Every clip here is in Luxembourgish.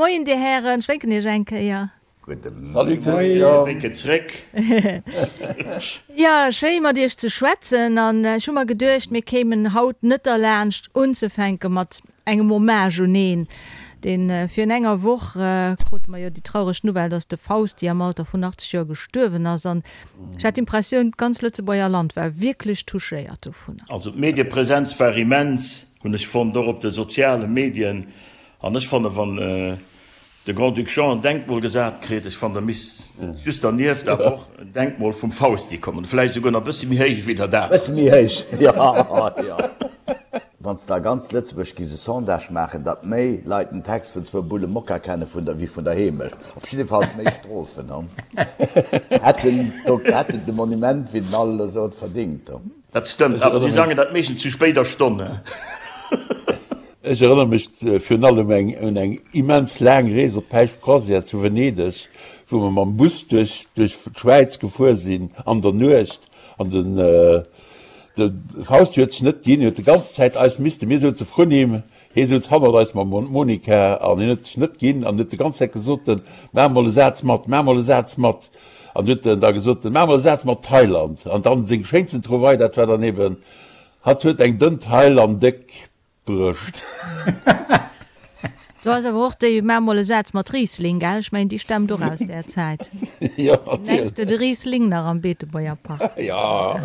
Moien Dir Hären, ech wénken Iech eng Kéier. Gudde Salut Christian. Wénken zréck. Jo, schéi mat Iech ze schwätzen an ech hu mer geduecht, mir kéimen haut net derlaanscht unzefänke mat engem Hommage un een, deen virun enger Woch krute mer jo déi traureg Nouvelle, dass de Fausti am Alter vun 80 Joer gestuerwen ass an ech hat d'Impressioun, d'ganz Lëtzebuerger Land war wierklech touchéiert dovunner. Also d'Mediepresenz war immens, hunn ech fonnt, och op de soziale Medien an ech fanne wann de Grand-Duc Jean en Denkmol gesat kritt, ech fannen da misst just dernieft awer och en Denkmol vum Fausti kommen, vläicht esouguer nach e bëssi méi héich wéi dat anert. Bëssi méi héich, jo, jo. Wann s de a ganz Lëtzebuerg giss e Sondage maachen, datt méi Leit den Text vun Zwou Bulle Mokka kenne vun der wéi vun der Heemecht, op jiddefalls méi Strophen, hätten hätten de Monument, wéi den Al elo sot, verdingt. Dat stëmmt, awer si sangen dat meeschtens zu spéider Stonn. Ech erënnere mech virun allem eng un eng immens laang Rees op d'Päischt-Croisière zu Venedeg, wou mer mam Bus duerch duerch d'Schwäiz gefuer sinn an der Nuecht an den de Fausti huet sech net ginn, huet de ganz Zäit eis misste, mir souze vrun him, hie souz hannert eis mam Monika an hien huet sech net ginn an huet de ganz Zäit gesot, maach mol e Saz mat, maach mol e Saz mat an huet en da gesot, maach mol e Saz mat Thailand an dann seng schéinsten Trouvaille, dat war dann eben, hatt huet eng dënn Taille an déck Brëscht. Do ass awer och déi Maach mol e Saz mat Riesling, gell? Ech mengen, déi stammt och aus där Zäit. Jo, natierlech. Nenns de de Riesling nach am Beetebuerger Park? Jo.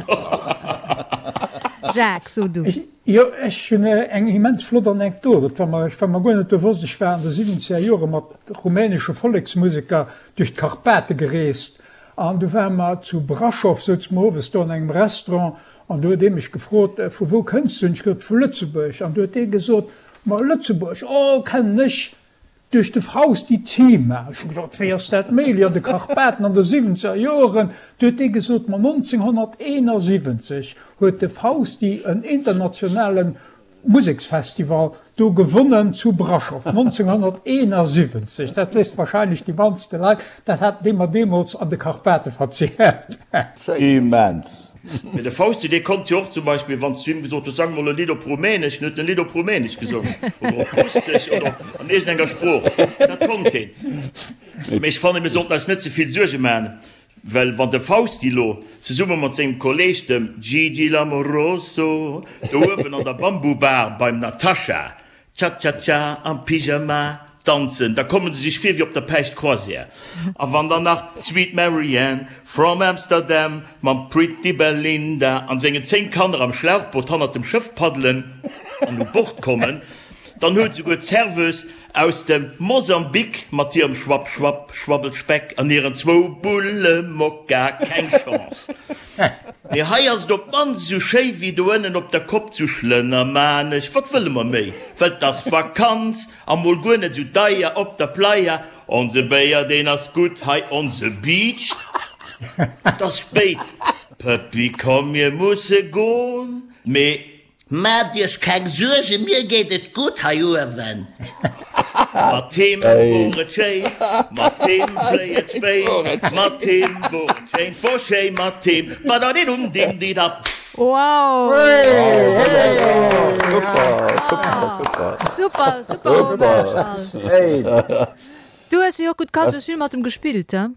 Jacques, so du. Jo, ech hunn eng immens flott Anekdot. Dat war mer, ech war mer guer net bewosst. Ech war an de siwwenzeger Jore mat rumänesche Volleksmuseker duerch d'Karpate gereest an du ware mer zu Braschow, souze mer owes do an engem Restaurant An du huet dee mech gefrot, Vu wou kënns du? Hunn ech gesot, Vu Lëtzebuerg. An du huet dee gesot, Ma Lëtzebuerg, oh, kennen ech duerch de Fausti Cima. Ech hu gesot, Wéi ass dat méiglech an de Karpaten an de siwwenzeger Joeren? Du huet dee gesot, Ma 1971 huet de Fausti en internationale Museksfestival do gewonnen zu Braschow 1971. Dat wéisst wahrscheinlech déi mannste Leit. Dat hat dee mer deemools an de Karpate verzielt. Immens! Mee de Fausti, dee konnt jo och zum Beispill, wann s du him gesot hues, sang mol e Lidd op Rumänesch, dann huet en e Lidd op Rumänesch gesongen oder op Russesch oder an iergendenger Sprooch. Dat konnt heen. Mee ech fannen, mir sollten eis net ze vill Suerge maachen. Well wann de Fausti lo zesumme mat sengem Kolleg, dem Gigi L'Amoroso, do uewen an der Bambu-Bar beim Natascha Cha-cha-cha am Pyjama danzen, da komme se sech vir wéi op der Päischt-Croisière. A wann dann nach d'Sweet Marianne from Amsterdam mam Pretty Belinda an sengen 10 Kanner am Schlauchboot hannert dem Schëff paddelen an u Bord kommen, dann huet esouguer d'Serveuse Aus dem Mosambik mat hirem Schwapp Schwapp Schwabbelspeck an hiren zwou Bulle Mokka keng Chance. Mee hei ass et op d'mannst esou schéi wéi do ënnen op der Kopp zu Schlënnermanesch. Wat wëlle mer méi? Well 't ass Vakanz a mol guer net esou deier op der Playa. Onse Béier deen ass gutt hei, onse Beach. 't ass spéit, Pëppi komm mir musse gon. Mee Maacht iech keng Suergen, mir geet et gutt hei uewen. Mat him wor et schéin, mat him fléi et spéit, mat him wor et schéin, 't wor schéi mat him, badadidum-dim-didap. Wow! Super, super, super Hommage Al. Du hues jo och gutt kannt, du hues vill mat em gespillt, he?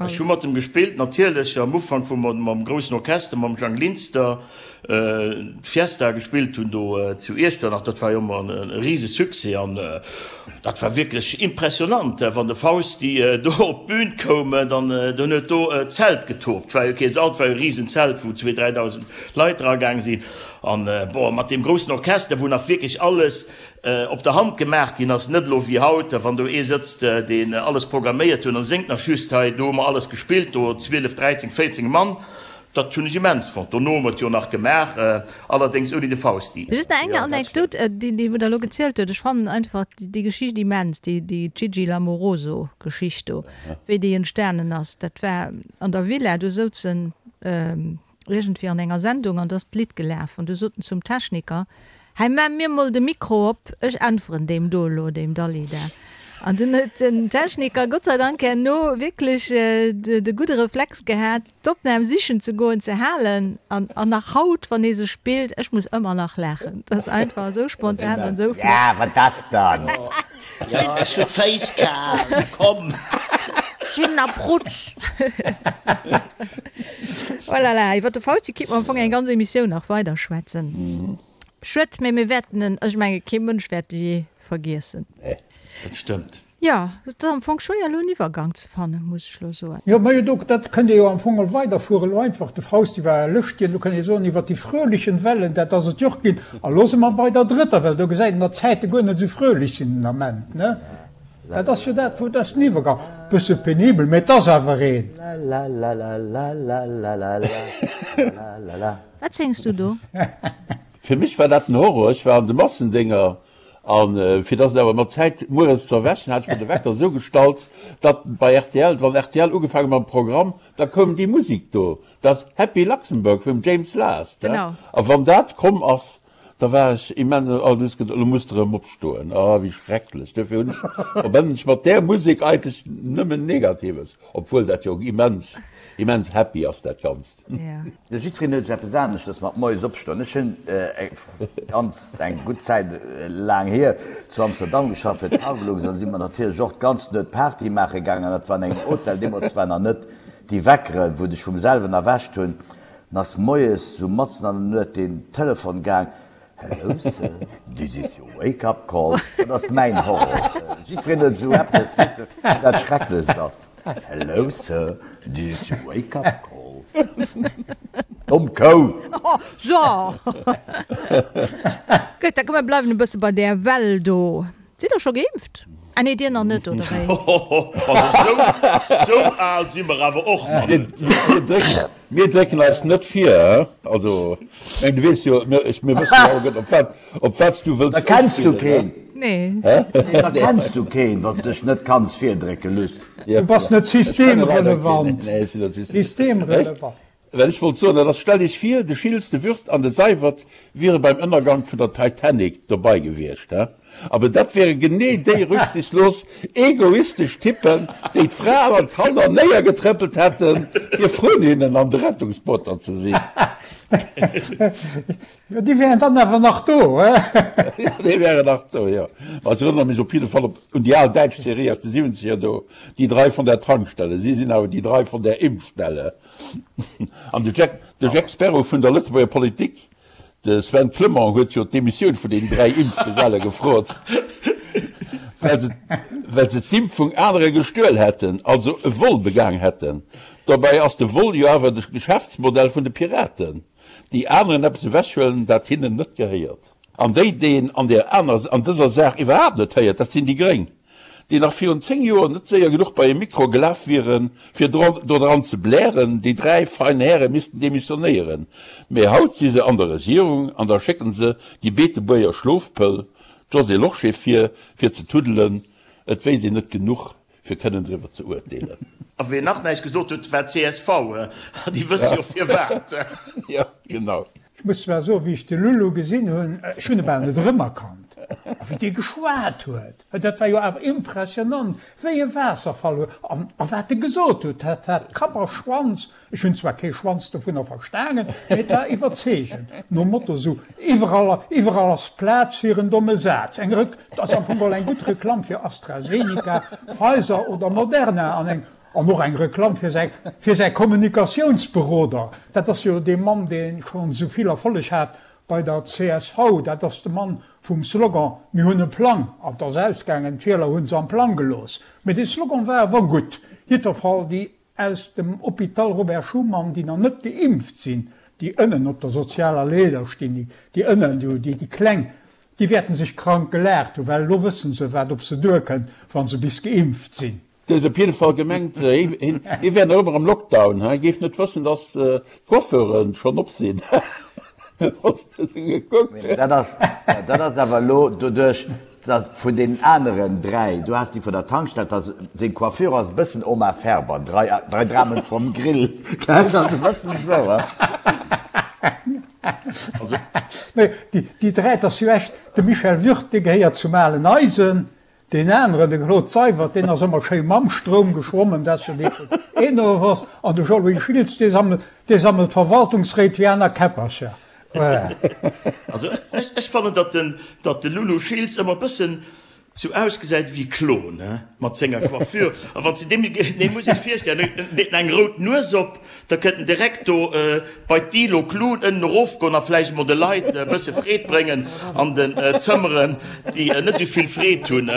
Ech hu mat em gespillt, natierlech am Ufank, wou mer mam groussen Orchester, mam Jang Linster, d'Fiesta gespillt hunn do zu Iechternach. Dat war jo ëmmer e rise Succès an dat war wierklech impressionant, wann de Fausti do op d'Bün koum, dann dann huet do d'Zelt getobt. War jo kee Sall, et war jo e risen Zelt, wou zwee, 3.000 Leit eragaang sinn. An bon, mat deem groussen Orchester, wou nach wierklech alles op der Hand gemaach ginn ass, net elo wéi haut, wann do ee sëtzt, deen alles programméiert huet an séngt nach just hei, do hu mer alles gespillt, do 12, 13, 14 Mann, dat hunn ech immens fonnt. Dono hu mer et jo nach gemaach, allerdéngs ouni de Fausti. Just nach eng Anekdot, déi wou Der elo gezielt hutt, ech fannen einfach déi Geschicht immens, déi Gigi L'Amoroso-Geschicht do, wéi déi entstanen ass. Dat war an der Villa, do souzen iergendwéi an enger Sendung an do ass d'Lidd gelaf an du sot en zum Techniker, Hei maach mir mol de Mikro op, ech äntweren deem do elo, deem Dalida. An dunn huet den Techniker Gott sei Dank herno wierklech de gudde Reflex gehat, d'Opnam sichen ze goen, ze halen. An nach haut, wann ee se spillt, ech muss ëmmer nach laachen. Dat ass einfach esou spontan an esou flott. Ja, wat ass dann? Ech hunn d'Féiss kal, komm! Ech sinn a Prutz! Oh la la, iwwer de Fausti kéint mer am Fong eng ganz Emissioun nach weiderschwätzen. Schued, mee mir wäerten en, ech menge kee Mënsch wäert e jee vergiessen. Nee. Dat stëmmt. Jo, et ass am Fong schwéier elo en Iwwergang ze fannen, muss ech elo soen. Jo, majo, do, dat kënnt ee jo am Fong och weiderfueren. Elo einfach, de Fausti war e Lëschtjen, do kënnt ee soen, iwwer déi fröhlichen Wellen, dat ass et jo och ginn. A lo si mer bei der drëtter Well, do gesäit een, datt d'Zäite guer net esou fröhlich sinn den Ament, ne? Dat ass jo dat, wou, dat ass den Iwwergang. Bësse penibel, mä et ass awer een. Wat séngs du do? Fir mech war dat den Horror. Ech war an de Massendénger an fir dass et awer mat Zäit mueres ze erwächen, hat ech mer de Wecker esou gestallt, datt bei rtl, wann rtl ugefaangen mam Programm, da koum déi Musik do, dat Happy Luxembourg vum James Last. Genau. A wann dat komm ass, da war ech immens, oh, du hues geduet, elo muss de erëm opstoen, oh wéi schrecklech. Duerfir hunn ech, verbannen ech mat där Musek eigentlech nëmmen Negatives, obwuel dat jo immens, immens happy ass dat Ganzt. Jo, jiddwereen huet eppes aneschters mat moies opstoen. Ech hunn ganz eng gutt Zäit laang hier zu Amsterdam geschafft fir d'Cargolux an si mer natierlech och d'ganz Nuet Party maache gaangen an dat war an engem Hotel. Deemools waren nach net déi Weckeren, wou dech vum selwen erwächt hunn. An ass moies sou matzen an der Nuet den Telefon gaang, Hello sir, this is your wake up call. Dat ass mäin Horror. Jiddwereen huet esou eppes, weess de, wou dat Schrecklechst ass. Hello sir, this is your wake up call. Domm Kou! Oh, so! Gutt, da komm mir bleiwen e bësse bei där Well do. Sidd der scho geimpft? Ah nee, dir nach net, oder wéi? Also sou al si mer awer och nach net. Mir drécken eis net vir, he? Also, ech mengen, du weess jo, mir, ech, mir wëssen jo alleguerten, op wat, op wat s du wëlls Da kenns du uspillen, he? keen. Nee. Hä? Nee, da kenns du keen, wann s dech net kanns virdrécke, Luss. Du bass net Ech kenne leider keen. systemrelevant. Nee, ech sinn net system. Systemrelevant. Well ech wollt soen, dat ass, stell Iech vir, de Schiltz, de Würth an de Seywert wiere beim Ënnergank vun der Titanic dobei gewiescht, he? Aber dat wäre genee déi rücksichtslos, egoistesch Typen, déi d'Fraen an d'Kanner néiergetrëppelt hätten, fir vrun hinnen an de Rettungsbooter ze sinn. Jo, déi wären dann awer nach do, he? Jo, déi wären nach do, jo. Ma ech erënnere mech op jidde Fall op, un déi al däitsch Serie aus de Siwwenzeger do, Die drei von der Tankstelle. Si sinn awer die drei von der Impfstelle. An de Jack, de Jack Sparrow vun der Lëtzebuerger Politik, De Sven Clement huet jo d'Demissioun vun den 3 Impfgeselle gefrot, well se well se d'Impfung anere gestuel hätten, also e Vol begaang hätten. Dobäi ass de Vol jo awer de Geschäftsmodell vun de Piraten, déi aneren eppes ewechhuelen, dat hinnen net gehéiert. An déi, déi een an der aner an dëser Saach iwwerhaapt net héiert, dat sinn déi Gréng. déi nach virun 10 Joer net séier genuch bei e Mikro gelaf wieren, fir dodran ze blären, déi 3 fein Häre missten demissionéieren. Mee haut si se an der Regierung an da schécken se déi Beetebuerger Schlofpëll, d'Josée Lorsché vir, fir ze tuddelen. Et wéisst een net genuch, fir kënnen driwwer ze uerteelen. A wien nach näischt gesot huet, war d'CSV. Déi wësse jo firwat. Jo, genau. Ech muss zwar soen, wéi ech de Lulu gesinn hunn, ech hunn e bal net erëmerkannt. A wéi dee geschwat huet, dat war jo awer impressionant, wéi e Waasserfall. An a wat e gesot huet, dat hat Kapp a Schwanz. Ech hunn zwar kee Schwanz dovunner verstanen, mee et war iwwerzeegend. Nom Motto sou, iwwerall, iwwerall ass Plaz fir en domme Saz. Eng Rek, dat ass am Fong geholl eng gutt Reklamm fir AstraZeneca, Pfizer oder Moderna an eng An och eng Reklamm fir säi fir säi Kommunikatiounsberoder. Dat ass jo dee Mann, dee schonn esou vill Erfolleg hat bei der csv. Dat ass de Mann vum Slogan Mir hunn e Plang. An 't ass ausgaangen, d'Wieler hu se am Plang gelooss. Mee dee Slogan war awer gutt. Jiddwerfall déi aus dem Hôpital Robert Schuman, déi nach net geimpft sinn, déi ënnen op der sozialer Leeder stinn, déi ënnen, déi Kleng, déi wäerten sech krank gelaacht hunn, well elo wëssen se, wat op se duerkënnt, wa se bis geimpft sinn. Du hues op jidde Fall gemengt, hie wär nach ëmmer am Lockdown, hie géif net wëssen, datt d'Coiffeuren schonn op sinn. Wann s de esou gekuckt hues. Dat ass, dat ass awer elo doduerch, datt vun deenen aneren 3, du has déi vun der Tankstell, datt seng Coiffure ass e bëssen Oma Ferber, drei, drei Dramen vom Grill, gell, dat ass e bëssen esou, he? Mee déi 3, dat ass jo echt, de Michel Würth, dee gehéiert zum alen Eisen. Deen aneren, de Claude Seywert, deen ass ëmmer schéi mam Stroum geschwommen, dat ass jo dee vun Enovos. An de Jean-Louis Schiltz, dee sammelt, dee sammelt Verwaltungsréit wéi aner Käppercher. Voilà. Also ech fannen, datt den, datt de Lulu Schiltz ëmmer e bëssen sou ausgesäit ewéi Klon, he, mat senger Coiffure. A wann s de deem, dee muss ech virstellen, en deet en eng rout Nues op, da kënnt en direkt do bei d'Ilo Klun ënnen erofgoen a vläicht emol de Leit e bësse Freed bréngen an den Zëmmeren, déi net esou vill Freed hunn.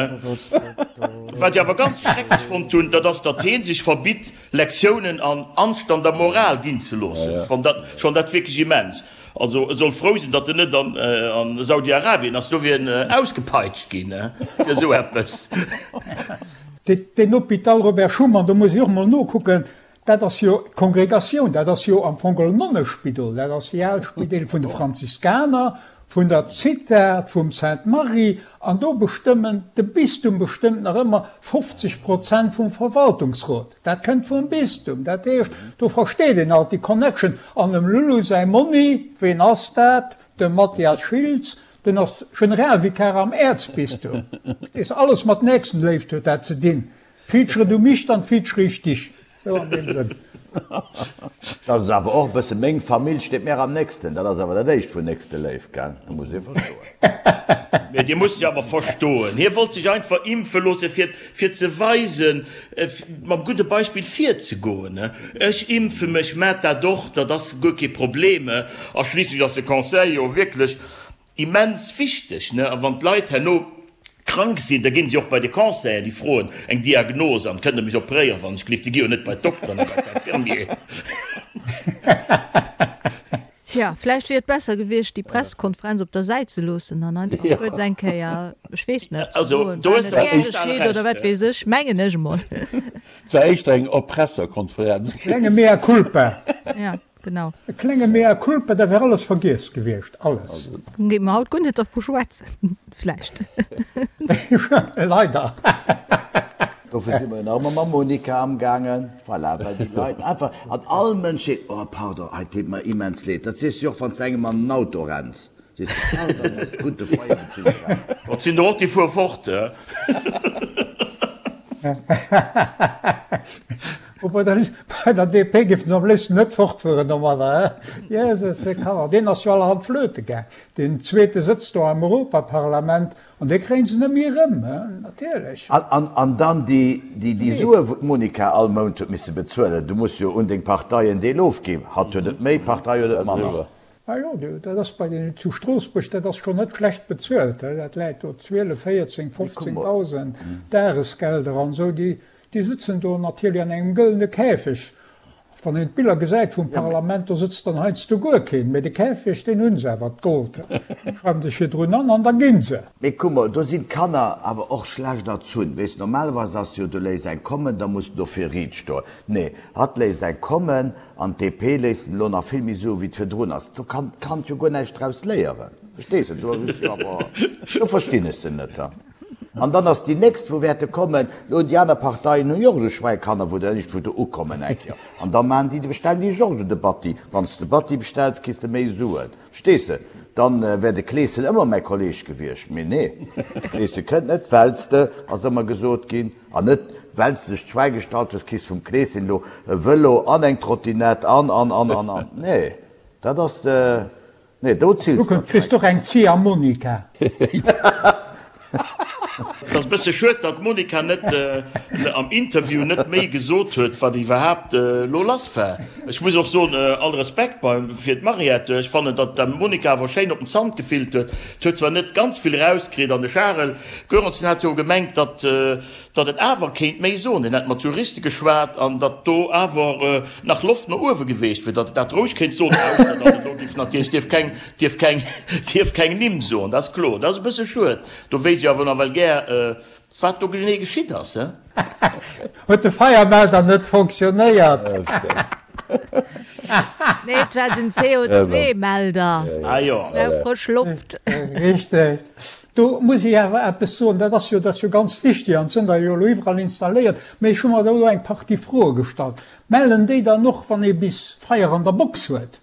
Wat ech awer ganz schrecklech fonnt hunn, dat ass, datt hee sech verbitt, Lektiounen an Anstand a Moral ginn ze loossen. Ech fann dat, ech fann dat wierklech immens. Also e soll frou sinn, datt en net an Saudi-Arabien ass, do wier en ausgepeitscht ginn fir esou eppes. Deen Hôpital Robert Schuman, do muss ech och mol nokucken, dat ass jo d'Kongregatioun, dat ass jo am Fong geholl en Nonnespidol, dat ass déi al Spideel vun de Franziskaner, vun der Zitha, vum Sainte-Marie, an do bestëmmen, de Bistum bestëmmt nach ëmmer 50 Prozent vum Verwaltungsrot. Dat kënnt vum Bistum. Dat heescht, do versteet een alt déi Connection. An dem Lulu säi Monni, ween ass dat? De Mathias Schiltz, den ass Generalvikar am Äerzbistum. Verstees de? Alles mat Nächstenléift huet dat ze dinn. Feature du mich, dann feature ich dich. Sou an deem Sënn. Dat ass awer och e bësse meng Famill steet mär am nächsten. Dat ass awer dat éischt vun Nächsteléift, gell? Dat muss ee verstoen. Mee Dir musst jo awer verstoen, hie wollt sech einfach impfe loosse fir fir ze weisen, mam gudde Beispill virzegoen, Ech impfe mech, maacht dat och, dat ass guer kee Problem. A schliisslech ass de Conseil jo wierklech immens wichteg. A wann d'Leit herno krank sinn, da ginn si och bei de Conseil, déi froen eng Diagnos an, Kënnt Der mech operéieren, wann ech gelift? Déi gi jo net bei d'Dokteren a bei d'Infirmier. Tja, vläicht wier et besser gewiescht, déi Pressekonferenz op der Säit ze loossen an einfach kuerz eng Kéier, ech weess net, ze soen, war net gär geschitt oder wat weess ech, mengen ech emol. Et war éischter eng Erpresserkonferenz. E klenge Mea culpa. Ja, genau. E klenge Mea culpa, da wär alles vergiess gewiescht, alles. Dann géife mer haut guer net dervu schwätzen, vläicht. Leider. Dofir si mer jo nach ëmmer mam Monica amgaangen. Voilà, well déi Leit einfach, an all Mënsch seet, oh pardon, hei deet mer immens leed. Dat sees du jo och, wann s de engem an den Auto renns, sees de, pardon, ass gutt de Feier ze iwwerrennen. Et sinn der och, déi fuere fort. Oh, bei der, bei der DP géifen se am léifsten net fortfueren domadder, he? Jesus, de Kanner, deen ass jo allerhand flöte gaang. Deen zweete sëtzt do am Europaparlament. An déi kréien se net méi erëm, natierlech. An dann déi Sue wou d'Monica all Mount huet misse bezuelen. Du muss jo un deng Partei en Deel ofginn. Hatt huet et méi, d'Partei huet et manner. Ah jo, dat ass bei den zu Stroossbuerg, dat ass schonn net schlecht bezuelt. Dat läit do 12, 14, 15.000 Dagesgelder an esou. Déi sëtzen do natierlech an engem gëllene Käfeg. Wann een d'Biller gesäit vum Parlament, do sëtzt dann heiansdo guer keen, mee de Käfeg, deen hunn se awer, d'Gold schreiwen sech virdrun an, an da ginn se. Mee kuck mol, do sinn d'Kanner awer och schlecht erzunn. Weess, normalerweis ass jo, du léiss eng kommen, da muss de dofir riit stoen. Nee, hatt léisst eng kommen an d'DP léisst en elo nach vill méi soen, wéi et virdrun ass. Do kann d'Kand jo guer näischt draus léieren. Verstees de? Do hues jo awer, do verstinn ech se net. An dann ass déi nächst, wou wäerte kommen, elo déi aner Parteien hunn jo och esou Schwäikanner, wou der iergendwou do ukommen eng Kéier. An da maachen déi, bestellen déi sech och esou de Batti. Wann s de Batti bestells, kriss de méi Suen. Verstees de? Dann wär de Kleeschen ëmmer mäi Kolleeg gewiescht. Mee nee, de Kleesche kënnt net, well s de, ass ëmmer gesot ginn, an net well s de dech d'Schwäi gestallt hues, kriss vum Kleeschen elo e Vëlo an eng Trottinett an, an, an, an, an. Nee, dat ass. Nee, do zills de Kriss och eng Ziehharmonika. Et ass e bësse schued, datt d'Monica net am Interview net méi gesot huet, wat iwwerhaapt elo lass war. Ech muss och soen, all Respekt fir d'Mariette, ech fannen, datt d'Monica awer schéin op den Zant gefillt huet. Et huet zwar net ganz vill erauskritt an de Charel Goerens hat jo gemengt, datt datt en awer kéint méi soen, en hätt mat Juriste geschwat an datt do awer nach Loft no uewe geweecht wier, datt en dat roueg kéint soen, ausser datt en do géif natierlech dierf keng, dierf keng, dierf keng Nimm soen, dat ass kloer. Dat ass e bësse schued. Do wéisst ech awer nawell gär, wat do genee geschitt ass, he? Huet de Feiermelder net fonctionnéiert? Nee, et war den CO2-Melder. Ah jo. Brauch frësch Loft. Richteg. Do muss ech awer eppes soen, dat ass jo, dat ass jo ganz wichtig an et sinn der jo elo iwwerall installéiert, mä ech hu mer do elo eng Partie Froe gestallt. Mellen déi dann och, wann ee bis Feier an der Box huet?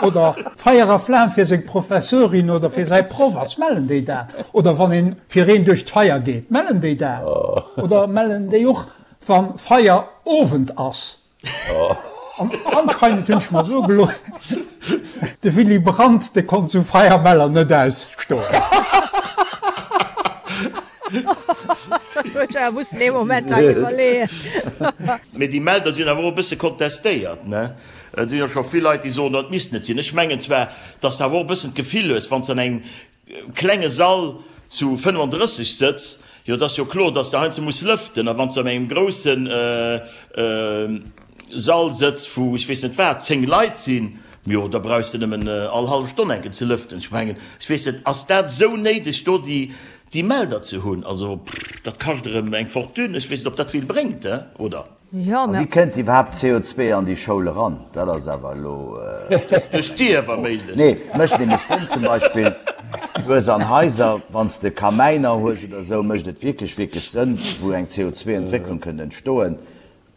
Oder Feier a Flam fir seng Professorin oder fir säi Proff ass, mellen déi dat? Oder wann een fir een duerch d'Feier geet, mellen déi dat? Oder mellen déi och wa Feierowend ass? An anscheinend hunn ech mer soe gelooss, de Willy Brandt, dee konnt sou Feiermeller net ausstoen. Da huet ech awer mussen ee Moment hei iwwerleeën. Mee déi Melder sinn awer och e bësse kontestéiert, ne? Et sinn jo scho vill Leit, déi soen, dat misst net sinn. Ech mengen zwar, dass de awer och e bëssen d'Gefill hues, wann s de an engem klenge Sall zu 35 sëtz, jo, et ass jo kloer, dass de heiansdo muss lëften. A wann s de an engem grousse Sall sëtz, wou ech weess net wat, 10 Leit sinn, jo, da brauchs de nëmmen all hallef Stonn eng Kéier ze lëften. Ech mengen, ech weess net, ass dat esou néideg, do déi Melder ze hunn? Also, dat kascht erëm eng Fortune. Ech weess net, ob dat vill bréngt, oder? Jo, mä. A wéi kënnt iwwerhaapt CO2 an déi Schoul eran? Dat ass awer elo. Duerch d'Dier, wa méiglech. Nee, mécht nämlech Sënn. Zum Beispill, du hues an Haiser, wann s de Kamäiner hues oder esou, mécht et wierklech, wierklech Sënn, wou eng CO2-Entwécklung kënnt entstoen,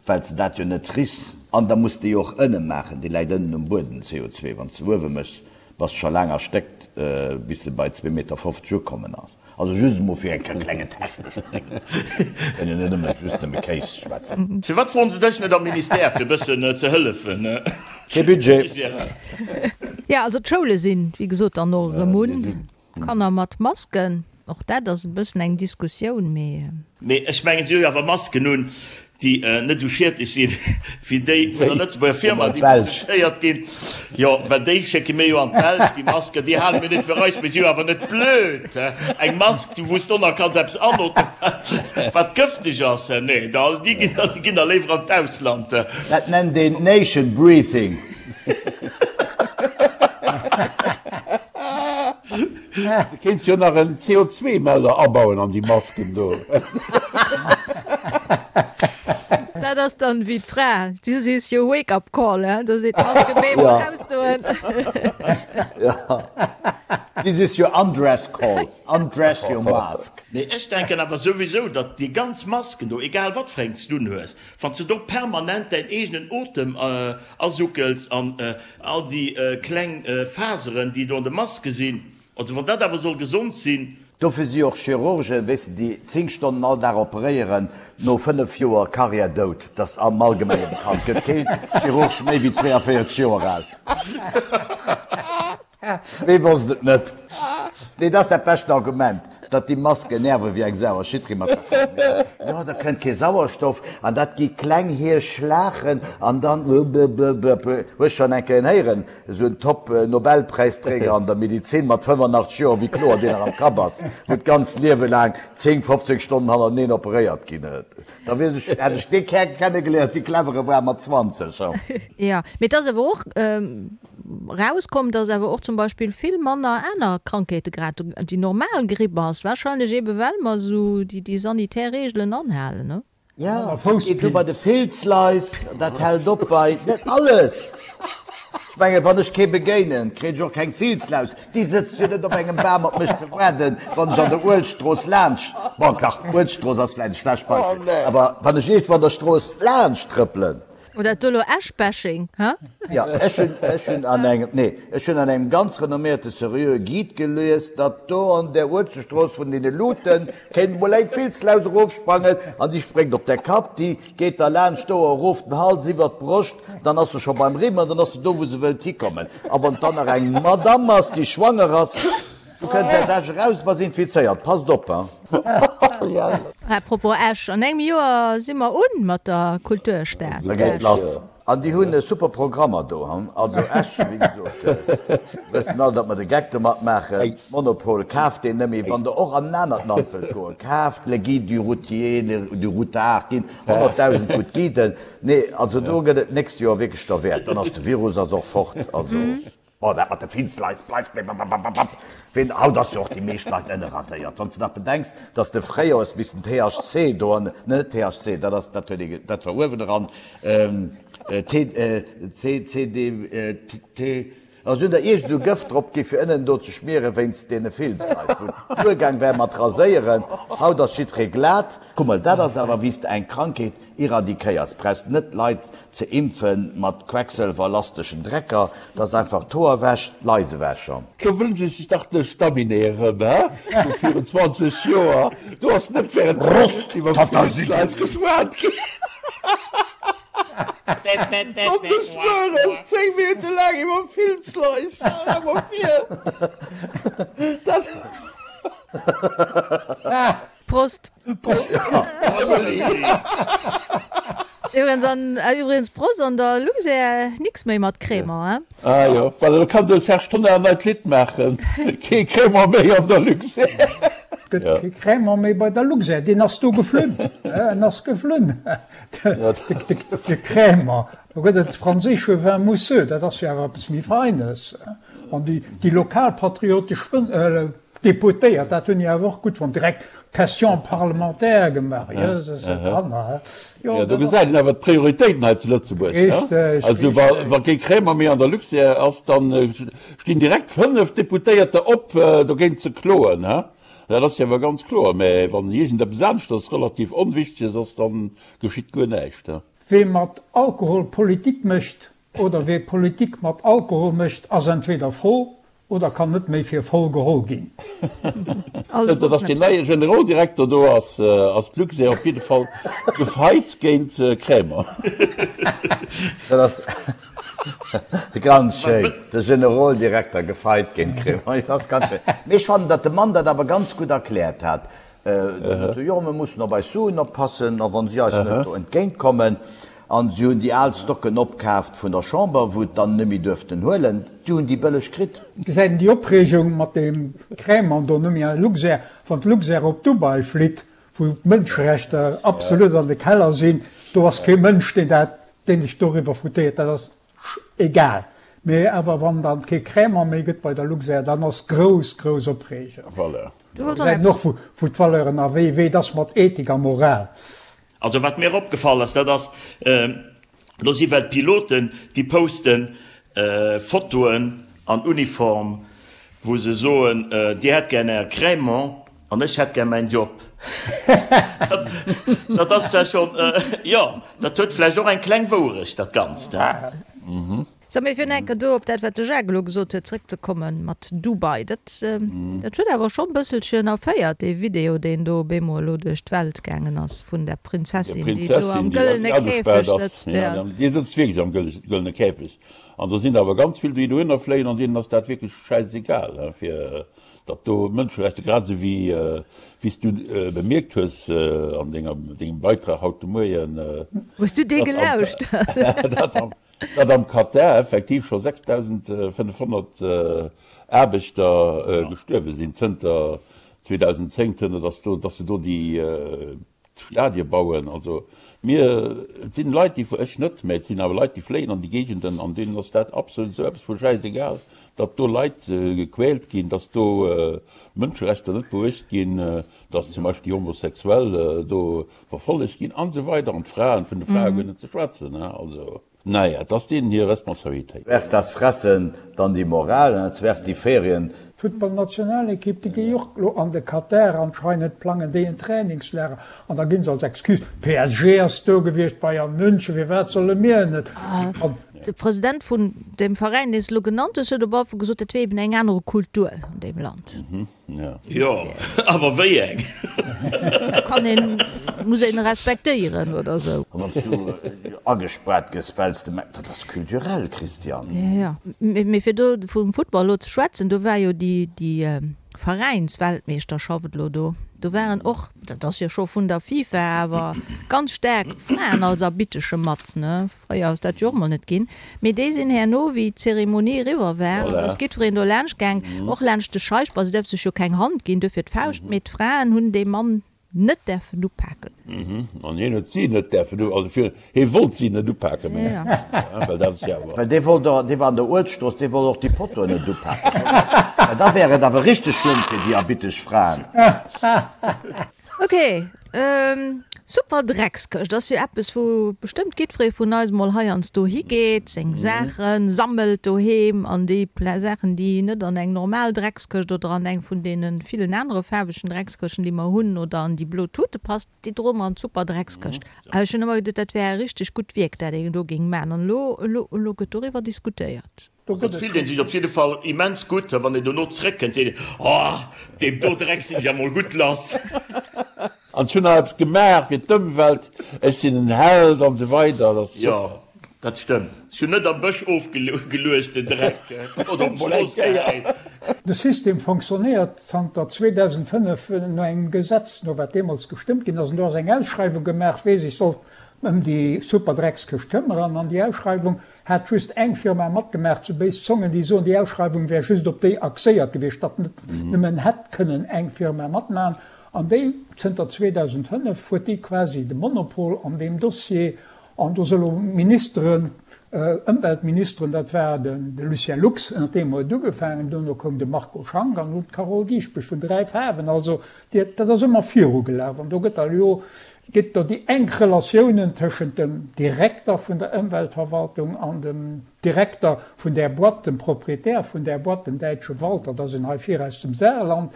well s de dat jo net richs. An da muss de jo och ënne maachen, dee läit ënnen um Buedem, CO2. Wann s de uewe méchs, bass de scho laang erstéckt, bis e bei zwee Meter 50 ukommen ass. Also just emol fir eng klenge techneschen Dingens. Kënn jo net ëmmer just nëmme Kéis schwätzen. Firwat froen se dech net am Ministère fir e bëssen ze hëllefen? Kee Budget. Jo, also d'Schoule sinn, wéi gesot, dann och erëm un. Kanner mat Masken, och dat ass e bëssen eng Diskussioun, mee. Mee ech mengen, si hu jo awer Masken un, déi net esou schiedlech sinn, wéi déi vun der Lëtzebuerger Firma, déi produzéiert ginn. Jo, well déi schécke mir jo an d'Belsch, déi Masken. Déi hale mir net fir eis. Mir si jo awer net blöd. Eng Mask, wou s du nach kanns eppes anootmen, wat gëfteg ass, nee, déi ginn da léiwer an d'Ausland. Dat nennt een Nation Breathing. Se kéint jo nach en CO2-Melder abauen an déi Masken do. Dat ass dann wéi d'Fra, This is your wake up call, he? Da seet d'Mask op eemol ausdoen. This is your undress call, undress your mask. Nee, ech denken awer souwisou, datt déi ganz Masken do, egal wat fir eng s du unhues, wann s de do permanent däin eegenen Otem asuckels an all déi kleng Faseren, déi do an de Maske sinn, also wann dat awer soll gesond sinn. Dofir si och Chirurgen, weess de, déi 10 Stonnen all Dag operéieren, no 5 Joer Karriär dout. Dat ass am Allgemenge bekannt. Gëtt kee Chirurg méi wéi 42 Joer al. Wee wosst et net? Nee, dat ass dat beschten Argument, datt déi Masken nerve wéi eng Sau. A jiddweree mat der Kapp. Jo, da kënnt kee Sauerstoff an dat gi kleng Hierschlachen an dann blblblb. Hues schonn eng Kéier een héieren, esou en Top-Nobelpräisträger an der Medizin mat 85 Joer, wéi kloer deen nach am Kapp ass, wou d'ganzt Liewe laang 10, 15 Stonnen hannerteneen operéiert ginn. Da wier ech, hätt ech dee Kär kennegeléiert, wéi clever e war mat 20. Jo, mee et ass awer och erauskomm, datt awer och zum Beispill vill manner aner Krankheete grad déi normal Gripp ass, wahrscheinlech eebe well mer esou déi sanitär Reegelen anhalen, ne? Jo, dat geet u bei de Filzlais, dat hält op bei, net alles! Ech mengen, wann ech kee begéinen, kréien ech och keng Filzlaus. Déi sëtzt jo net op engem Bam op mech ze waarden, wann ech an der Uelzechtstrooss laanscht, bon, dach, Uelzechtstrooss ass vläicht e schlecht Beispill, awer wann ech iergendwou an der Strooss laanscht trëppelen. Oder dat do elo Esch-Bashing, hä? Jo, ech hunn, ech hunn an engem, nee, ech hunn an engem ganz renomméierte seriöe Guide gelies, datt do an där Uelzechtstrooss vun deene Luuten kéint emol eng Filzlaus erofsprangen an déi spréngt op däi Kapp, déi Geet da laanscht d'Ouer erof, den Hals iwwert d'Broscht, dann ass se scho beim Rimm an dann ass se do, wou se wëllt hikommen. A wann et dann nach eng Madamm ass, déi schwanger ass, du kënns aus Esch eraus, bass infizéiert. Passt op, hein! À propos Esch, an engem Joer si mer un mat der Kulturstad Da geet Esch. lass. An déi hunn super Programmer do, hein. Also Esch, wéi gesot, wëssen all, datt mer de Geck domat maachen. Monopol, kaaft deen nëmme, wann Der och an en anert Land wëllt goen. Kaaft Le Guide du Routier, le du Routard, ginn 100.000 gutt Guiden. Nee, also do gëtt et d'nächst Joer wierklech derwäert. Dann ass de Virus ass och fort. Also. Bon, dat mat de Filzlais bleift, mee babababab, ween, haut ass jo och déi meescht Leit ënnerraséiert. Wann s de nach bedenks, dass de fréier hues missen THC do an, net THC, dat ass, dat huet ee, dat war uewen eran, T, C, C, D, T, A se hunn der iergend esou Gëft drop gi fir ënnen do ze schmieren wéinst deene Filzlais, wou et duergaang wär mat raséieren. Haut ass jiddweree glat. Kuck mol, dat ass awer wéi s de eng Krankheet Iradikéiers, brauchst net d'Leit ze impfen mat quecksëlwerlasteschen Drecker, dat ass einfach d'Hoer ewech, d'Lais ewech an. Do wënsch ech dach de Stamminet erëm, he, vu virun 20 Joer. Do ass net während 10 Minutten iwwer Filzlais geschwat ginn. Sonndes mueres 10 Minutte laang iwwer Filzlais, stell der mol vir. Dat. Prost! Iwwregens an iwwregens Prost an der Luxair nix méi mat Crémant, hein? Ah jo, voilà, do kann de Serge Tonnar en neit Lidd maachen, Kee Crémant méi an der Luxair. Gëtt kee Crémant méi bei der Luxair, deen ass do geflunn, en ass geflunn, de Crémant. Do gëtt et franséische Vin mousseux, dat ass jo awer eppes méi Feines. An déi lokalpatriotesch Deputéiert, dat hunn déi awer och gutt fonnt, direkt Question parlementaire gemaach. Jöses, e Kanner, he? Jo, do gesäit een awer d'Prioritéiten hei zu Lëtzebuerg, he? Richteg, Also wa kee Crémant méi an der Luxair ass, da stinn direkt 5 Deputéierter op, dogéint ze kloen, he? Dat ass jo awer ganz kloer. Mä wann iergendeppes aneschters relativ Onwichteges ass, da geschitt guer näischt, he? Wee mat Alkohol Politik mécht, Oder wee Politik mat Alkohol mécht, ass entweder voll oder kann net méi fir voll geholl ginn. Zënter datt deen neie Generoldirekter do ass, ass d'Luxair op jidde Fall gefeit géint Crémant. Dat ass ganz schéin, de Generoldirekter gefeit géint Crémant, dat ass ganz schéin. Mee ech fannen, datt de Mann dat awer ganz gutt erkläert hat. Jo, mir mussen op eis Suen oppassen, a wa si eis net do entgéint kommen. An si hunn déi al Stocken opkaaft vun der Chamber, wou et dann net méi duerften huelen. Déi hunn déi bëlleg kritt. Gesäit een déi Opreegung mat deem Crémant do net méi an Luxair. Wann d'Luxair op Dubai flitt, wou d'Mënscherechter absolut an de Keller sinn, do ass kee Mënsch, deen dat, deen sech doriwwer foutéiert. Dat ass egal. Mee awer wann dann kee Crémant méi gëtt bei der Luxair, dann ass grouss, grouss Opreegung. Voilà. Do gesäit een och, wou d'Valeuren a wéi et ass mat Ethik a Moral. Also wat mir opgefall ass, dat ass, do si well d'Piloten, déi posten Fotoen an Uniform, wou se soen, Dir hätt gär Är Crémant an ech hätt gär mäin Job. Dat ass zwar schonn, jo, dat huet vläicht och eng kleng Wouerecht, dat Ganzt. Sou, mee fir enker do op dat, wat de Jacques elo gesot huet, zrëckzekomme mat Dubai, dat, dat huet awer schonn e bësselchen erféiert, dee Video, deen do op eemol elo duerch d'Welt gaangen ass vun där Prinzessin, déi do am gëllene Käfeg sëtzt. Ja, déi sëtzt wierklech am gëllene Käfeg. An do sinn der awer ganz vill, déi dohinner fléien an deenen ass dat wierklech schäisegal, fir datt do Mënscherechter, grad esou wéi, wéi s du bemierkt hues an denger, dengem Beitrag haut de Moien. Hues du dee gelauscht? Datt am Katar effektiv scho 6.500 Aarbechter gestuerwe sinn zënter 2010, zënter datt do, datt se do déi Stadie bauen. Also mir, et sinn Leit, déi, ech net, mä et sinn awer Leit, déi fléien an déi Géigenden an deenen ass dat absolut esou eppes vu schäisegal, datt do Leit gequält ginn, datt do Mënscherechter net beuecht ginn, datt zum Beispill déi Homosexuell do verfollegt ginn an esou weider an d'Fraen, vun de Frae guer net ze schwätzen, hein, also naja, et ass deenen hir Responsabilitéit. Erst das Fressen, dann die Moral, hein, zuerst die Ferien. D'Futtballnationalekipp, déi géi och elo an de Katar, anscheinend plangen déi en Trainingslager an da ginn se als Excuse, PSG ass do gewiescht, Bayern München, firwat solle mir net? An. De President vun deem Veräin, deen s de elo genannt hues, huet op alle Fall gesot, dat wier eben eng anere Kultur an deem Land. Jo, awer wéi eng? Kann een, muss een respektéieren oder sou. An wann s du agespaart gëss, well s de mengs, dat ass kulturell, Christian. Jo, jo. Mee fir do vum Football elo ze schwätzen, do war jo déi, déi Veräinsweltmeeschterschaft elo do. Do waren och, dat ass jo scho vun der FIFA, awer ganz staark Fraen als Arbittesche mat, ne? Fréier ass dat jo och mol net ginn. Mee déi sinn herno, wéi d'Zeremonie eriwwer war, an da ass jiddwereen do laanscht gaang, och laanscht de Scheich, bon, se däerf sech jo keng Hand ginn, duerfir d'Fauscht, mee d'Fraen hunn dee Mann net däerfen upaken. An hien huet si net däerfen, also fir, hie wollt si net upaken, mengen ech, well dat ass jo awer. Well dee wollt och, dee war an der Uelzechtstrooss, dee wollt och déi Pottoen net upaken. Well da wär et awer richteg schlëmm fir déi erbiteg Fraen. Ok. Super Dreckskëscht ass jo eppes wou bestëmmt giddferee vun eis mol heiansdo higeet, seng Saache sammelt doheem an déi Saachen déi net an eng normal Dreckskëscht oder an eng vun deene villen anere faarwegen Dreckskëschten déi mer hunn oder an déi blo Tute passt, déi droe mer an d'Super Dreckskëscht. Ech hunn ëmmer geduet dat wär e richteg gutt Wierk dat een do géing maachen an elo elo elo gëtt doriwwer diskutéiert. Do gëtt et fillt een sech op jidde Fall immens gutt, wann een dono zréckkënnt, seet een, Oh, deem do Dreck sinn ech emol gutt lass. An ech hunn nach eppes gemaach fir d'Ëmwelt, ech sinn en Held an esou weider. Dat ass Jo, super. dat stëmmt. Ech hunn net am Bësch ofgeluecht den Dreck oder op Mol eng d'Strooss Kéier. gehäit. De System fonctionnéiert zanter 2005 no engem Gesetz, no wat deemools gestëmmt ginn ass. An do ass eng Ausschreiwung gemaach, wee sech sollt ëm déi Superdreckskëscht këmmeren. An déi Ausschreiwung Hat just eng Firma matgemaach, zu béis Zongen déi soen, déi Ausschreiwung wär just op déi axéiert gewiescht, datt net nëmmen hätt kënnen eng Firma matmachen. An déi, zënter 2005 huet déi quasi de Monopol an deem Dossier. An do si lo Ministeren, Ëmweltministeren, dat war de Lucien Lux, ënner deem huet et ugefaangen, duerno koum de Marco Schank an elo d'Carole Dieschbourg vun 3 Faarwen. Also dat ass ëmmer virugelaf an do gëtt da elo Gëtt do déi enk Relatiounen tëschent dem Direkter vun der Ëmweltverwaltung an dem Direkter vun där Boîte, dem Proprietär vun där Boîte, dem däitsche Walter, dat ass en hei vir aus dem Saarland,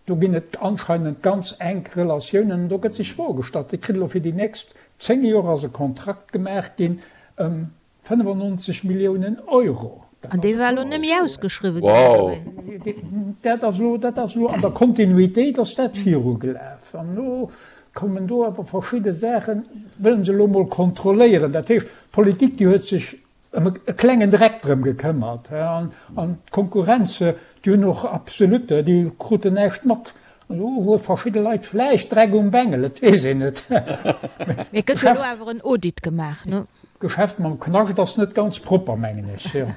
do ginn et anscheinend ganz enk Relatiounen an do gëtt sech Froe gestallt. Dir kritt elo fir déi nächst 10 Joer ass e Kontrakt gemaach ginn ëm 95 Milliounen Euro. An dee war elo net méi ausgeschriwwen ginn, oder wéi? Dat ass elo, dat ass elo an der Kontinuitéit ass dat virugelaf. An elo kommen do awer verschidde Saachen, wëllen se elo emol kontrolléieren. Dat heescht, d'Politik, déi huet sech ëm e klengen Dreck drëm gekëmmert. An d'Konkurrenz, déi hunn och absolut, déi kruten näischt mat. Elo hu verschidde Leit vläicht Dreck um Bengel, et weess een net. Mee et gëtt jo elo awer en Audit gemaach, ne? D'Geschäft mam Knascht ass net ganz propper, mengen ech. Jo.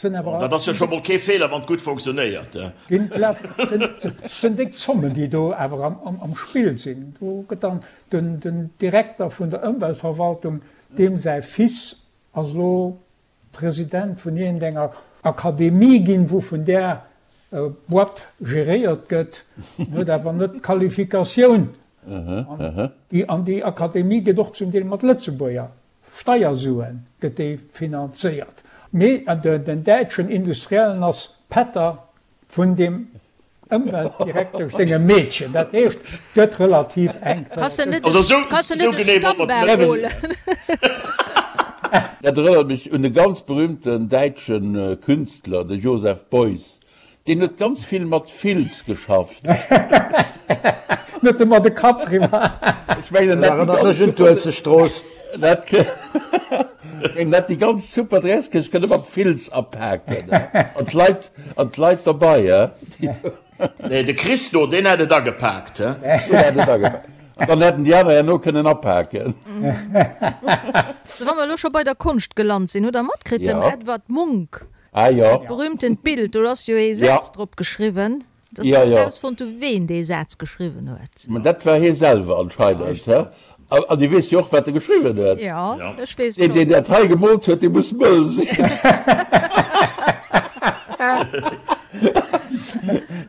Dat ass jo scho mol kee Feeler, wann et gutt fonctionnéiert. Et sinn déck Zommen, déi do awer am Spill sinn. Do gëtt dann den Direkter vun der Ëmweltverwaltung, deem säi Fils ass elo President vun iergendenger Akademie ginn, wou vun där Boîte geréiert gëtt, en huet awer net d'Qualifikatioun. An déi Akademie gëtt och zum Deel mat Lëtzebuerger Steiersue gëtt déi finanzéiert. Mee den däitschen Industriellen ass Pätter vun deem Ëmweltdirektesch sengem Meedchen. Dat heescht, et gëtt relativ enk. Kanns de net e Stammbam holen? Dat erënnert mech un e ganz berühmten däitsche Künstler, de Joseph Beuys. Deen huet ganz vill mat Filz geschafft. Net ëmmer de Kapp driwwer. Ech mengen, en hätt déi ganz super. En hätt déi ganz super Dresskëscht kënne mat Filz apaken an d'Leit an d'Leit derbei, he. Nee, de Christo, deen hätt et agepaakt, he. Deen hätt et agepaakt. An dann hätten déi aner herno kënnen apaken. Sou, wa mer elo scho bei der Konscht gelant sinn, hutt Der matkritt, dem Edvard Munch Ah jo. dat berühmtent Bild, do ass jo ee Saz drop geschriwwen. Et ass net erausfonnt hu ween dee Saz geschriwwen huet. Mä dat war hie selwer anscheinend, he? An Dir weess jo och, wat e geschriwwen huet. Jo, ech weess et schonn. Deen, deen dat hei gemoolt huet, dee muss mëll sinn.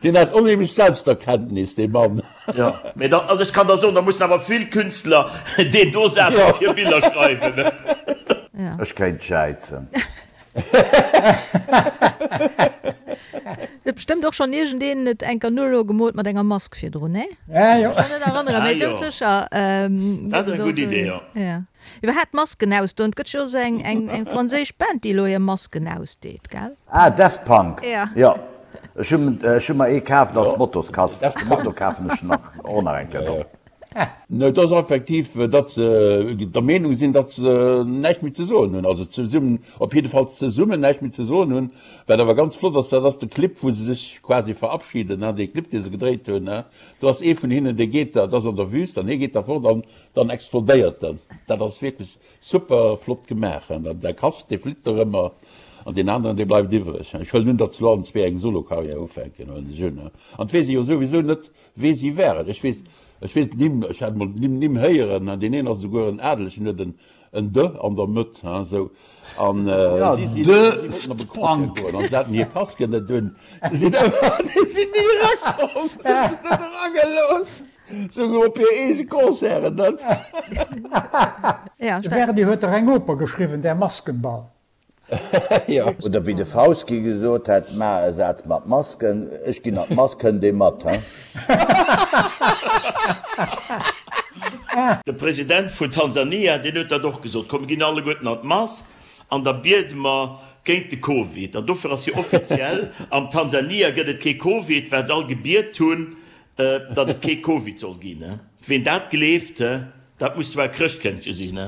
Deen hat onheemlech Selbsterkenntnis, dee Mann. Jo, mä da, also ech kann der soen, da mussen awer vill Künstler deen do Saz op hir Biller schreiwen. Ech kéint jäizen. Huet bestëmmt och schonn iergendeen et enker null gemoolt mat enger Mask virdrun, nee? Ja, jo. Ech kann net erënneren, mee doudsécher Dat ass eng gutt Idee, jo. Ja. Iwwerhaapt Masken ausdoen, et gëtt jo esou eng, eng, eng franséisch Band, déi elo hir Masken ausdeet, gell? Ah, Daft Punk. Ja. Jo. Ech hunn, ech hu mer ee kaaft als Mottoskass. Motto kafen ech nach, och nach eng Kéier do. Et ass effektiv, datt se der Meenung sinn, datt se näischt méi ze soen hunn, also zesummen, op jiddefalls zesummen näischt méi ze soen hunn. Wat awer ganz flott ass, dat ass de Clip, wou se sech quasi verabschieden, dee Clip, dee se gedréit hunn. Do ass ee vun hinnen, dee geet da, dat ass an der Wüst, an hie geet da fort an dann explodéiert en. Dat ass wierklech super flott gemaach. An de Casque, dee flitt dorëmmer an deen aneren, dee bleift iwwreg. Ech huelen un, datt se elo allen zwee eng Solo-Karriär ufänken, huelen ech un. An et weess ee jo souwisou net, Wee si waren? Ech weess, ech weess d'Nimm, ech hat emol d'Nimm Nimm héieren, hein, deen een ass esouguer en Adelegen, huet en, en de an der Mëtt, hein, esou. An Ja, si sinn, de si wollten op e Concert Punk. goen an se haten hir Casquen net un. Se sinn ëmmer, déi sinn ni erakomm, se hunn se net eragelooss. Souguer op hir eege Concerten net. De Verdi huet dach eng Oper geschriwwen, Der Maskenball. Jo. Oder wéi de Fauski gesot hätt, Maach e Saz mat Masken, ech ginn an d'Mask, kënnt ee mat, he? De President vun Tansania, deen huet dat och gesot, Komm mir ginn alleguerten an d'Mask an da biede mer géint de Covid. An dofir ass jo offiziell, an Tansania gëtt et kee Covid, well se all gebiet hunn, Datt et kee Covid soll ginn. Ween dat gleeft, dat muss zwar e Chrëschtkëndche sinn.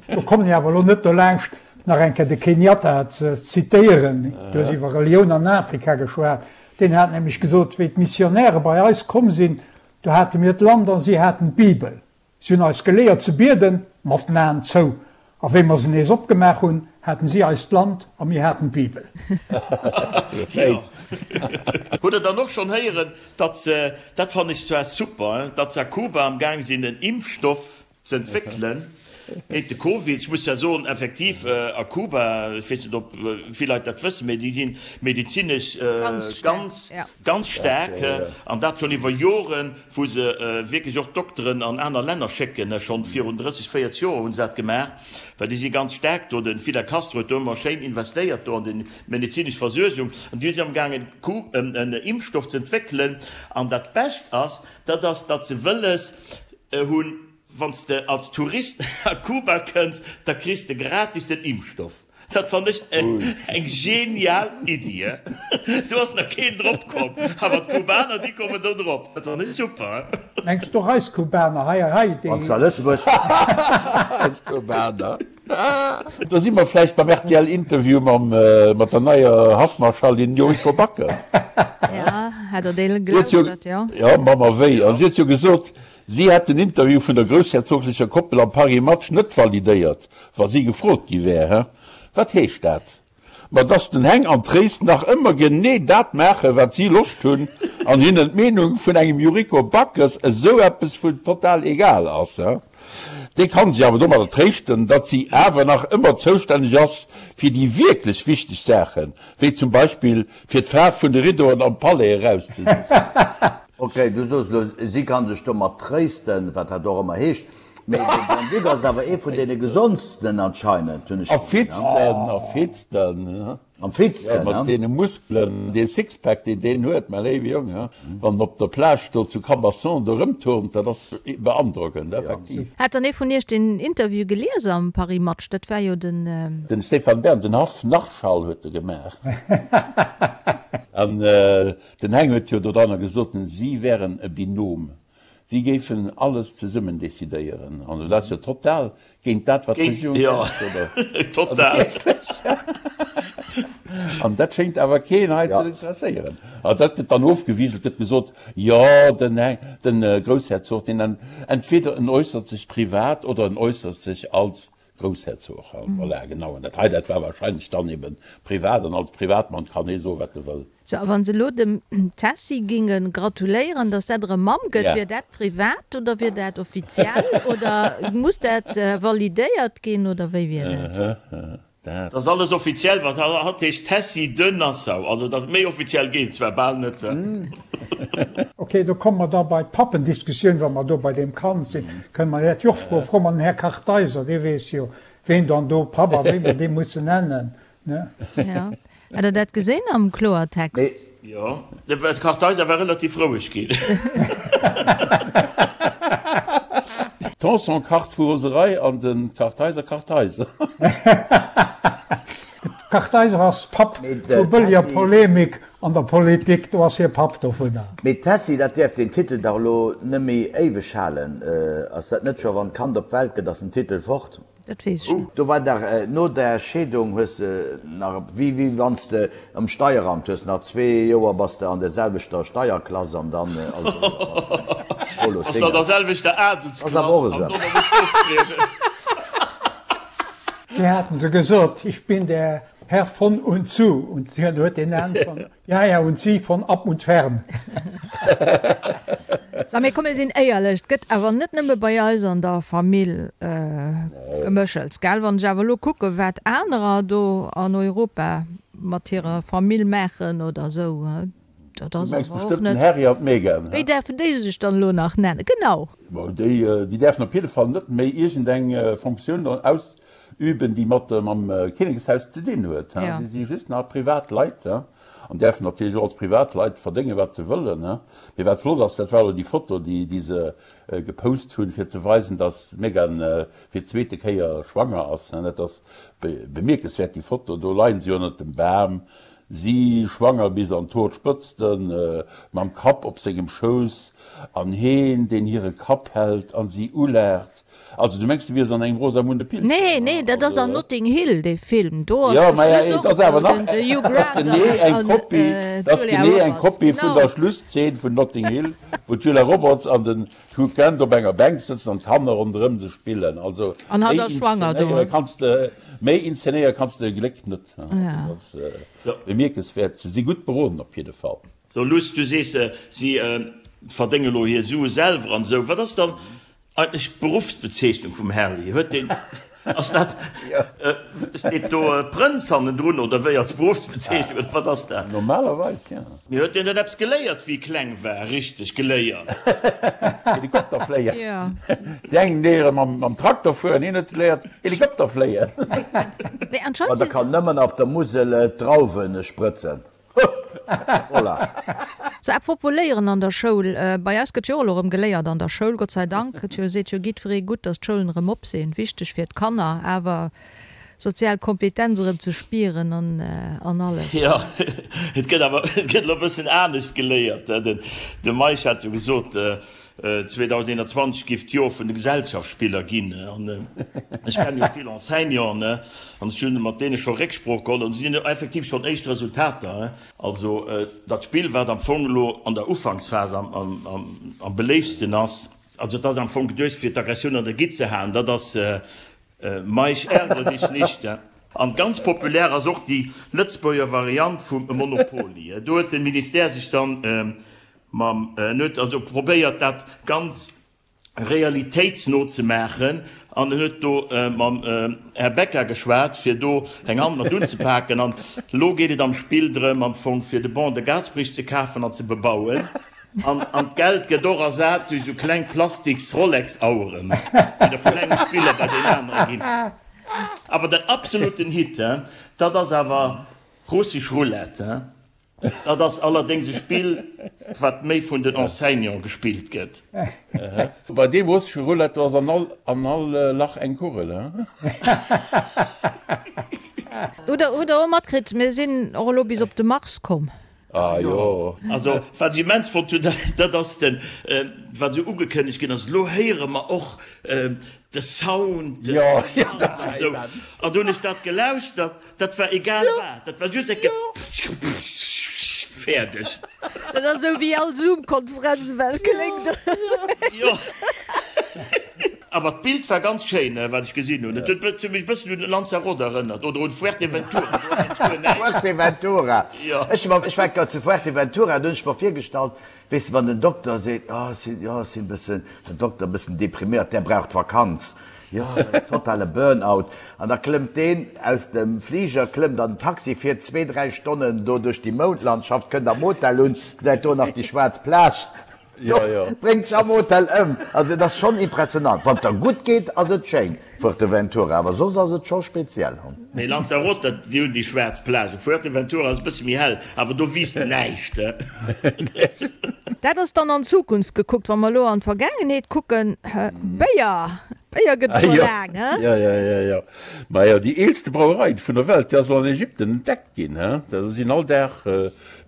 Do kommen ech awer elo net dolaanscht, nach eng Kéier de Kenyatta ze zitéieren. Du hues iwwer Relioun an Afrika geschwat. Deen hat nämlech gesot, Wéi d'Missionäre bei eis komm sinn, do hate mir d'Land a si haten d'Bibel. Si hunn eis geléiert ze bieden, mat den Aen zou, a wéi mer se nees opgemaach hunn, haten si eis d'Land a mir haten d'Bibel. Hutt der dann och schonn héieren, datt se, dat fannen ech zwar super, datt se a Kuba am Gaang sinn en Impfstoff ze entwéckelen géint de Covid? Ech muss zwar soen, effektiv a Kuba, ech weess net ob vill Leit dat wëssen, mee déi si medezinesch ganz, ganz staark, an dat schonn iwwer Joren. wou se wierklech och Dokteren an aner Länner schécken, schonn virun 30, 40 Joer hu se dat gemaach, well déi si ganz staark do, de Fidel Castro huet do ëmmer schéin investéiert do an déi medezinesch Versuergung, an déi si amgaangen en Impfstoff ze entwéckelen, an dat Bescht ass, dat ass, datt se wëlles hunn, wann s de als Tourist a Kuba kënns, da kriss de gratis den Impfstoff. Dat fann ech eng genial Iddi. Do ass nach keen drop komm, awer d'Kubaner déi kommen do drop. Dat fann ech super. Mengs d'och eis Kubaner hei hei déi. Wanns de a Lëtzebuerg. Eis Kubaner. Do si mer vläicht beim rtl Interview mam mat der neier Haffmarschallin Yuriko Backes. Ja, hat der dee gelauschtert, jo. Jo, Mamma wéi. An si huet jo gesot, Si hätt den Interview vun der groussherzoglecher Koppel am Paris Match net validéiert, wa si gefrot gi wär. Hä? Wat heescht dat? Ma dass den Heng an d'Tréis nach ëmmer genee dat maachen, wat si Loscht hunn, an hinnen d'Meenung vun engem Yuriko Backes esou eppes vun total egal ass. Hä? Dee kann sech awer domadder tréischten, datt si awer nach ëmmer zoustänneg ass fir déi wierklech wichteg Saachen, wéi zum Beispill fir d'Faarf vun de Riddoen am Palais erauszesichen. Ok, du soos elo, si kann sech domat tréisten, wat dat och ëmmer heescht, mee de Grand-Duc ass awer ee vun deene gesondsten anscheinend, hunn ech A fitsten, a fitsten, Am fitsten, ja, mat deene Muskelen, dee Sixpack, deen deen huet, mäi léiwe Jong, ja, wann en op der Plage do zu Cabasson do erëmturnt, dat ass beandrockend, effektiv. Hat dann ee vun iech den Interview gelies am Paris Match? Dat war jo den. Den Stéphane Bern, den Haff-Narschall huet e gemaach. An Den Heng huet jo dodranner gesot, si wären e Binôme, si géifen alles zesummen decidéieren. An dat ass jo total géint dat, wat d'Regierung denkt, oder? Total. An dat schéngt awer keen hei ze interesséieren. A dat gëtt dann ofgewiselt, gëtt gesot, jo, den Heng, de Groussherzog, deen entweder en äussert sech privat oder en äussert sech als Groussherzog, voilà, genau. An dat hei, dat war wahrscheinlech dann eben privat, an als Privatmann kann ee soen, wat e wëll. Sou, a wann se elo dem Tessy ginge gratuléieren, datt dat erëm Mamm gëtt, wier dat privat oder wier dat offiziell oder muss dat validéiert ginn oder wéi wier dat? Dat ass alles offiziell, wat hatt heescht Tessy de Nassau. Also dat méi offiziell geet et zwar bal net. Ok, do komme mer da bei d'Pappendiskussioun, wa mer do bei deem Kand sinn, kënne mer dat jo och froen. Froe mer den Här Kartheiser, dee weess jo, ween dann do Papp a wéi mer dee mussen nennen, ne? Jo. Hat Der dat gesinn am Kloertext? Jo, de Kartheiser war relativ roueg ginn. Tanson kacht vu Roserei an de Kartheiser Kartheiser. De Kartheiser ass Papp vu bëlleger Polemik an der Politik, do ass hie Papp dovunner. Mee Tessy, dat däerf den Titel dach elo nëmméi éiweg halen. Ass dat net scho wann d'Kand op d'Welt gëtt, ass den Titel fort? Dat weess ech net. Do war dach no der Scheedung hues de nach wéi wéi wanns de am Steieramt hues nach zwee Joer bass de an der selwechter Steierklass an dann ass et eriwwer bass de solo Bass de an der Single. selwechter Ass awer och Adelsklass an esou. dono muss de oftrieden. Wéi haten se gesot, ich bin der Herr von und zu und hien huet den Enn von Ja, ja, und sie von ab und fern. Sou, mee komm mir sinn éierlech, et gëtt awer net nëmme bei eis an der Famill Geméchels, gell? Wann ech awer elo kucke wat anerer do an Europa mat hirer Famill maachen oder esou. Dat Du ass mengs awer och bestëmmt den net. Harry an d'Meghan, Wéi he? däerfen déi sech dann elo nach nennen? Genau. Bon, déi, déi däerfen op jidde Fall net méi iergendeng Fonctioun ausüben, déi mat mam Kinnekshaus ze dinn huet, he? Ja. Si si just nach privat Leit, he? An däerfen natierlech och als privat Leit verdéngen, wat se wëllen, he? Mee wat flott ass, dat war elo déi Foto, déi, déi se gepost hunn, fir ze weisen, dass d'Meghan fir d'zweete Kéier schwanger ass, he? Dat ass bemierkenswäert, déi Foto. Do leien se jo ënnert dem Bam, Si, schwanger bis an d'Hoerspëtzten, mam Kapp op sengem Schouss, an heen, deen hire Kapp hält an si ulaacht. Also, du mengs, du wiers an engem Rosamunde Pilcher? Nee, nee, dat ass an Notting Hill, dee Film. Do ass Jo, de maja, Schluss et och ass awer esou, nach, den de Hugh et ass Grant genee an eng Kopie, et ass d'Julia genee eng Roberts, Kopie vun genau. der Schlusszeen vun Notting Hill, wou d'Julia Roberts an den Hugh Grant op enger Bänk sëtzen an d'Kanner ronderëm se spillen. Also, An hatt méi ass schwanger do. inszenéiere kanns de, méi inszenéiere kanns de e Gléck net. Ja. Bemierkenswäert, se si gutt beroden op jidde Fall. So Luss, du sees si verdénge lo hir Sue selwer an esou. Wat ass dann eigentlech d'Beruffsbezeechnung vum Harry? Huet deen, ass dat, steet do Prënz hannendrun oder wéi als Beruffsbezeechnung oder wat ass dat? Normalerweis jo. Mee huet deen dann eppes geléiert wéi e kleng war? Richteg geléiert? Helikopter fléien. Déi eng léiere mam Trakter fueren, hien huet geléiert Helikopter fléien. Mee Ma anscheinend der si kann nëmmen op der Musel d'Drauwen sprëtzen. Voilà. Sou, apropos léieren an der Schoul, bei eis gëtt jo och elo erëm geléiert an der Schoul, Gott sei Dank. Et jo seet jo jiddweree gutt, datt d'Schoulen erëm op sinn, wichteg fir d'Kanner, awer sozial Kompetenz erëm ze spieren an an alles. Jo, et gëtt awer, et gëtt elo e bëssen anescht geléiert. De Meisch hat jo gesot, 2021 giff d'Jor vun de Gesellschaftsspiller ginn. An ech kennen jo vill Enseignanten an ech hunn mat deene scho Récksprooch geholl an si hunn effektiv schonn éischt Resultater. Also dat Spill, wat am Fong elo an der Ufanksphas am beléiftsten ass, also et ass am Fong geduecht fir d'Aggressioun an der Gitt ze halen, dat ass Meisch ärgere dich nicht. An ganz populär ass och déi Lëtzebuerger Variant vum Monopoly. Do huet de Ministère sech dann Mam, en huet also probéiert dat ganz realitéitsno ze maachen an en huet do mam Här Becca geschwat, fir do eng Hand mat unzepaken. An elo geet et am Spill drëm am Fong fir de Ban de Gasperich ze kafen an ze bebauen. An, an d'Geld gëtt och ersat duerch esou kleng plastiks Rolex-Aueren, déi da vun engem Spiller bei deen anere ginn. Awer den absoluten Hit, dat ass awer Russisch Roulette. Dat ass allerdéngs e Spill, wat méi vun den Enseignante gespillt gëtt. Bei deem russesche Roulette, do ass an all, an all Lach eng Kugel, he? Hutt der, hutt der och matkritt, mir sinn och elo bis op de Mars komm? Ah jo. Also, wat ech immens fonnt hunn, dat ass den, wat esou ugekënnegt ginn ass, elo héiere mer och de Sound, de Mars an esou. An du hunn ech dat gelauschtert. Dat war egal wat, dat war just eng Fäerdeg. Dat ass esou wéi all Zoom-Konferenz ewell kléngt. Jo. Awer d'Bild war ganz schéin, wat ech gesinn hunn. Et huet mech e bëssen un Lanzarote erënnert oder un Fuerteventura. Do ass nämlech guer näischt. Fuerteventura. Jo. Ech war grad zu Fuerteventura, do hunn ech mer virgestallt, weess de, wann den Dokter seet, oh ech sinn, jo, ech sinn e bëssen, den Dokter e bëssen depriméiert, där braucht Vakanz. Jo, totale Burnout. An da klëmmt deen aus dem Fliger, klëmmt an den Taxi, fiert zwee, dräi Stonnen do duerch déi Moundlandschaft, kënnt am Hotel un, gesäit do nach déi schwaarz Plage, do bréngt sech am Hotel ëm. Also et ass schonn impressionant. Wann et der gutt geet, ass et schéin, Fuerteventura, awer soss ass et scho speziell. Nee, Lanzarote, déi hunn déi schwaarz Plage. Fuerteventura ass e bësse méi hell, awer do wiisst näischt. Dat ass dann an d'Zukunft gekuckt. Wa mer elo an d'Vergaangenheet kucken, Béier, Béier gëtt et scho laang, he? Jo, jo, jo, jo. Majo, déi eelste Brauerei vun der Welt, déi ass elo an Ägypten entdeckt ginn, he? Do sinn all Dag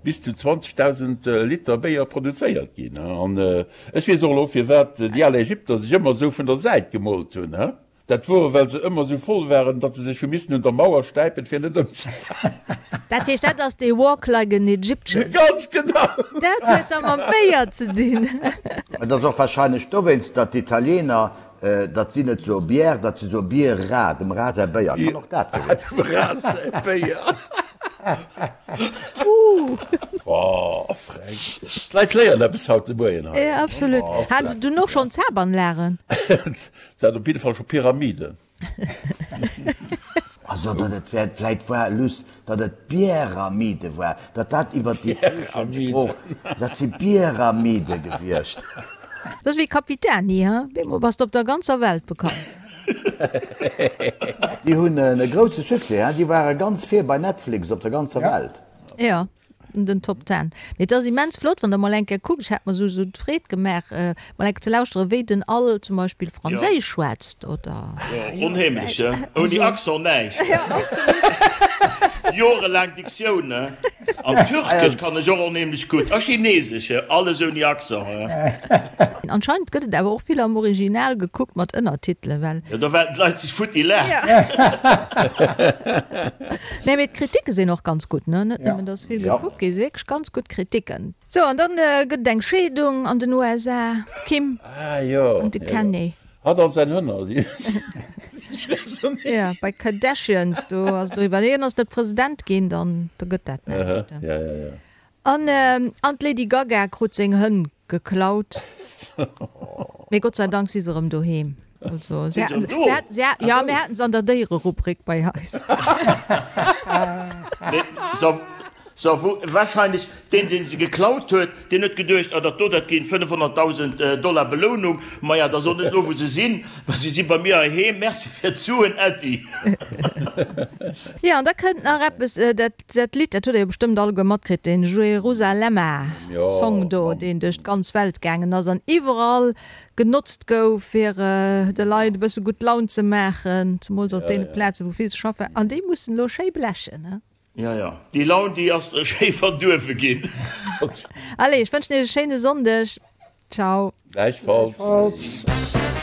bis zu 20.000 Liter Béier produzéiert ginn, he? An ech weess och elo, firwat déi al Ägypter sech ëmmer esou vun der Säit gemoolt hunn, he? Dat wor, well se ëmmer sou voll waren, datt se sech hu missen un der Mauer stäipen, fir net ëmzefalen. Dat heescht, dat ass dee Walk like an Egyptian. Ganz genau! Dat huet da mam Béier ze dinn. Et ass och wahrscheinlech dowéinst, datt d'Italiener, datt si net soe Bière, datt si soe Birra, dem Ra säi Béier. Kann och dat gewiescht sinn. Dem Ra säi Béier. Oh, frech. D'Leit léieren eppes haut de Moien hei. Jo, absolut. Hate se dunn och schonn Zabanlagen? Se hat op jidde Fall scho Pyramiden. Also datt et wäert vläit war luss, datt et Bieramide war, datt dat iwwer déi Zeechensprooch, dat si Bieramide gewiescht. Dat ass wéi Capitani, he? Bemol bass de op der ganzer Welt bekannt. Déi hunn e grousse Succès, he? Déi ware ganz vir bei Netflix op der ganzer Welt. Jo. Den Top Ten. Mee et ass immens flott, wann der mol eng Kéier kuckt, ech hat mer sou d'Freed gemaach, mol eng Kéier ze lauschteren, wéi den Al zum Beispill Franséisch schwätzt oder. Jo, onheemlech, he? Ouni Accent näischt. Jo, absolut. Jorelaang Diktioun, he? An Türkesch kann ech och onheemlech gutt. A Chinesesch, he? Alles ouni Accent, he? Anscheinend gëtt et awer och vill am Original gekuckt mat Ënnertitelen, well. Jo, da waarden d'Leit sech futti laachen. Nee, mee d'Kritike sinn och ganz gutt, ne? Net nëmmen, dass vill gekuckt gi, si wierklech ganz gutt Kritiken. Sou, an dann gëtt et eng Scheedung an den USA, d'Kim an de Kanye. Hatt an säin Hënner si Jo, bei Kardashians, do ass et eriwwer. Hien ass net President ginn, dann da gëtt dat näischt. An an d'Lady Gaga krut seng Hënn geklaut. Mee Gott sei Dank si se erëm doheem. Also, si haten, se haten, se haten, jo, mir haten se an der Déiererubrik bei eis. Mee se, se wou, wahrscheinlech deen, deen se geklaut huet, deen huet geduecht, ah, dat do, dat ginn 500.000 Dollar Belounung, maja, da soen ech elo, wou se sinn, well se si bei mir heiheem, merci fir d'Suen, Äddi. Jo, an da kënnt nach eppes, dat Dat Lidd, dat hutt der jo bestëmmt alleguer matkritt, den Jerusalema Song do, deen duerch d'ganz Welt gaangen ass an iwwerall genotzt gouf, fir de Leit e bësse gutt Laun ze maachen, zemools op deene Plazen, wou vill ze schaffe war. An déi mussen elo schéi blechen, he? Jo, jo, déi Laun, déi ass schéi verduerwe ginn. Allez, ech wënschen iech e schéine Sonndeg. Ciao. Gläichfalls. Gläichfalls.